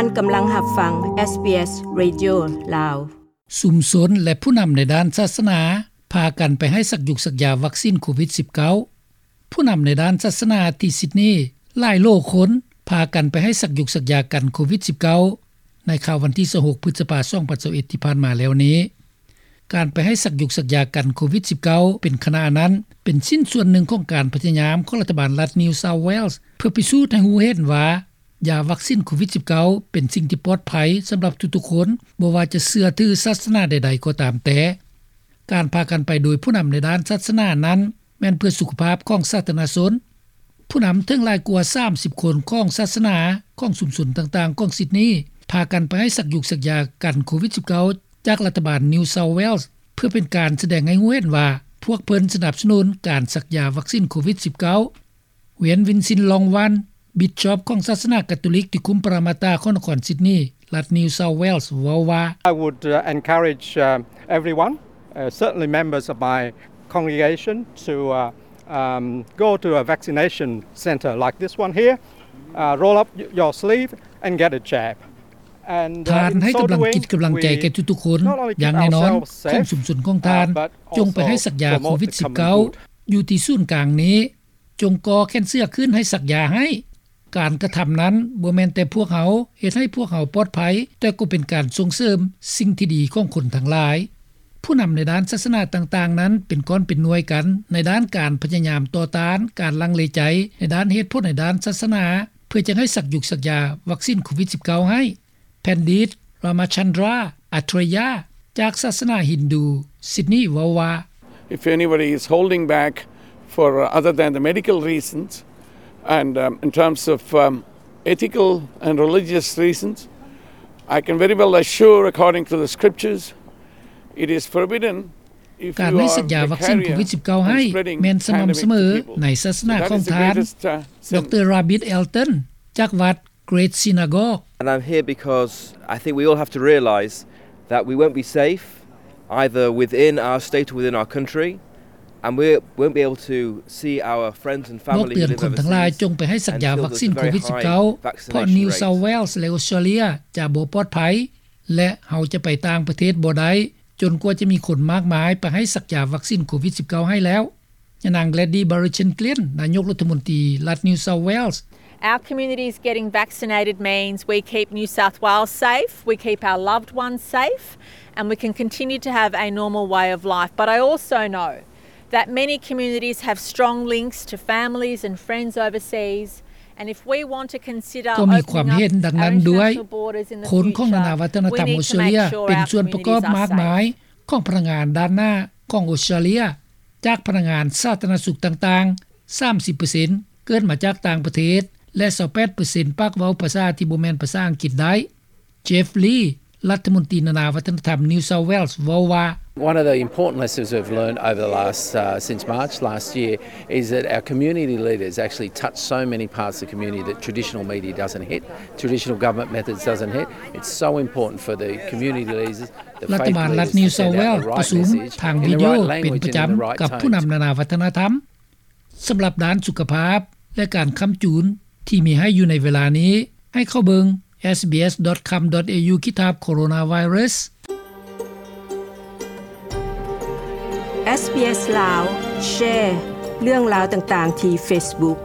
ທ່ານກຳລັງຮັບຟັງ ເອສບີເອສ Radio ລາວ. ຊຸມຊົນ ແລະ ຜູ້ນຳໃນດ້ານສາສະໜາ ພາກັນໄປໃຫ້ສັກຢູກສັກຢາວັກຊິນໂຄວິດສິບເກົ້າ. ຜູ້ນຳໃນດ້ານສາສະໜາທີ່ຊິດນີ ຫຼາຍໂຫຼຄົນ ພາກັນໄປໃຫ້ສັກຢູກສັກຢາກັນໂຄວິດສິບເກົ້າ ໃນຄ່ຳວັນທີຊາວຫົກ ພຶດສະພາ ສອງພັນຊາວເອັດ ທີ່ຜ່ານມາແລ້ວນີ້. ການໄປໃຫ້ສັກຢູກສັກຢາກັນໂຄວິດສິບເກົ້າ ເປັນຂະນະນັ້ນ ເປັນຊິ້ນສ່ວນໜຶ່ງຂອງການພະຍາຍາມຂອງລັດຖະບານລັດ New South Wales ເພື່ອພິສູດໃຫ້ຮູ້ເຫັນວ່າ ຢາວັກຊິນໂຄວິດສິບເກົ້າ ເປັນສິ່ງທີ່ປອດໄພສຳລັບທຸກໆຄົນ, ບໍ່ວ່າຈະເຊື່ອຖືສາສະໜາໃດໆກໍຕາມແຕ່. ການພາກັນໄປໂດຍຜູ້ນຳໃນດ້ານສາສະໜານັ້ນ ແມ່ນເພື່ອສຸຂະພາບຂອງສາທາລະນະຊົນ. ຜູ້ນຳເຖິງຫຼາຍກວ່າສາມສິບຄົນຂອງສາສະໜາຂອງຊຸມຊົນຕ່າງໆຂອງຊິດນີ ພາກັນໄປໃຫ້ສັກຢູກສັກຢາກັນໂຄວິດສິບເກົ້າ ຈາກລັດຖະບານ New South Wales ເພື່ອເປັນການສະແດງໃຫ້ຮູ້ເຫັນວ່າ ພວກເພິ່ນສະໜັບສະໜູນການສັກຢາວັກຊິນໂຄວິດສິບເກົ້າ. ເວນ ວິນຊິນ ລອງວັນ ບິດຊອບຂອງສາສະໜາກາໂຕລິກທີ່ຄຸມປະມາຕາຂອງນະຄອນຊິດນີ ລັດ New South Wales ເວົ້າວ່າ I would, uh, encourage, um, everyone, uh, certainly members of my congregation, to, uh, um, go to a vaccination centre like this one here, uh, roll up y-, your sleeve and get a jab. And, uh, ທ່ານໃຫ້ກຳລັງຈິດກຳລັງໃຈແກ່ທຸກໆຄົນ, ຢ່າງແນ່ນອນ ຂອງຊຸມຊົນຂອງທ່ານ ຈົງໄປໃຫ້ສັກຢາໂຄວິດສິບເກົ້າ ຢູ່ທີ່ສູນກາງນີ້. ຈົ່ງກໍ່ແຂນເສື້ອຂຶ້ນໃຫ້ສັກຢາໃຫ້. ການກະທຳນັ້ນບໍ່ແມ່ນແຕ່ພວກເຮົາເຮັດໃຫ້ພວກເຮົາປອດໄພ, ແຕ່ກໍເປັນການສົ່ງເສີມສິ່ງທີ່ດີຂອງຄົນທັງຫຼາຍ. ຜູ້ນຳໃນດ້ານສາສະໜາຕ່າງໆນັ້ນເປັນກ້ອນເປັນໜ່ວຍກັນໃນດ້ານການພະຍາຍາມຕໍ່ຕ້ານການລັງເລໃຈໃນດ້ານເຫດຜົນໃນດ້ານສາສະໜາ ເພື່ອຈະໃຫ້ສັກຢູກສັກຢາວັກຊິນໂຄວິດສິບເກົ້າໃຫ້. ແພນດິດ ຣາມາຊັນດຣາ ອາເທຣຍາ ຈາກສາສະໜາຮິນດູ ຊິດນີ ເວົ້າວ່າ If anybody is holding back for, uh, other than the medical reasons and, um, in terms of, um, ethical and religious reasons, I can very well assure, according to the scriptures, it is forbidden if you are vicariously spreading pandemic to people. ການໃຫ້ສັກຢາວັກຊິນໂຄວິດສິບເກົ້າໃຫ້ແມ່ນສະໝ່ຳສະເໝີໃນສາສະໜາຂອງທ່ານ ດຣ ຣາບິດ ເອລຕັນ ຈາກວັດ Great Synagogue. And I'm here because I think we all have to realise that we won't be safe either within our state or within our country, and we won't be able to see our friends and family who live overseas until there's a very high vaccination rate. ບອກເຕືອນຄົນທັງຫຼາຍຈົ່ງໄປໃຫ້ສັກຢາວັກຊິນໂຄວິດສິບເກົ້າ ເພາະ New South Wales ແລະ ອອສເຕຣເລຍຈະບໍ່ປອດໄພ ແລະ ເຮົາຈະໄປຕ່າງປະເທດບໍ່ໄດ້ ຈົນກວ່າຈະມີຄົນມາກມາຍໄປໃຫ້ສັກຢາວັກຊິນໂຄວິດສິບເກົ້າໃຫ້ແລ້ວ. ຍານາງ Gladys Berejiklian ນາຍົກລັດຖະມົນຕີລັດ New South Wales. Our communities getting vaccinated means we keep New South Wales safe, we keep our loved ones safe, and we can continue to have a normal way of life. But I also know that many communities have strong links to families and friends overseas, and if we want to consider opening up our international borders in the future, we need to make sure our communities are safe. ກໍມີຄວາມເຫັນດັ່ງນັ້ນດ້ວຍ. ຄົນຂອງນານາວັດທະນະທຳອອສເຕຣເລຍເປັນສ່ວນປະກອບມາກມາຍ ຂອງພະນັກງານດ້ານໜ້າຂອງອອສເຕຣເລຍ, ຈາກພະນັກງານສາທາລະນະສຸກຕ່າງໆ ສາມສິບເປີເຊັນ ເກີດມາຈາກຕ່າງປະເທດ ແລະ ຊາວແປດເປີເຊັນ ປາກເວົ້າພາສາທີ່ບໍ່ແມ່ນພາສາອັງກິດໄດ້. Jeff Lee ລັດຖະມົນຕີນານາວັດທະນະທຳ New South Wales ເວົ້າວ່າ One of the important lessons we've learned over the last, uh, since March last year is that our community leaders actually touch so many parts of the community that traditional media doesn't hit, traditional government methods doesn't hit. It's so important for the community leaders, the faith leaders to send out the right message in the right language and in the right tones. ລັດຖະບານລັດ New South Wales ປະຊຸມທາງວິດີໂອເປັນປະຈຳກັບຜູ້ນຳນານາວັດທະນະທຳ. ສຳລັບດ້ານສຸຂະພາບ ແລະ ການຄ້ຳຈູນທີ່ມີໃຫ້ຢູ່ໃນເວລານີ້ ໃຫ້ເຂົ້າເບິ່ງ SBS dot com dot au ຂີດຖາບ coronavirus. SBS ລາວ ແຊເລື່ອງລາວຕ່າງໆທີ່ Facebook.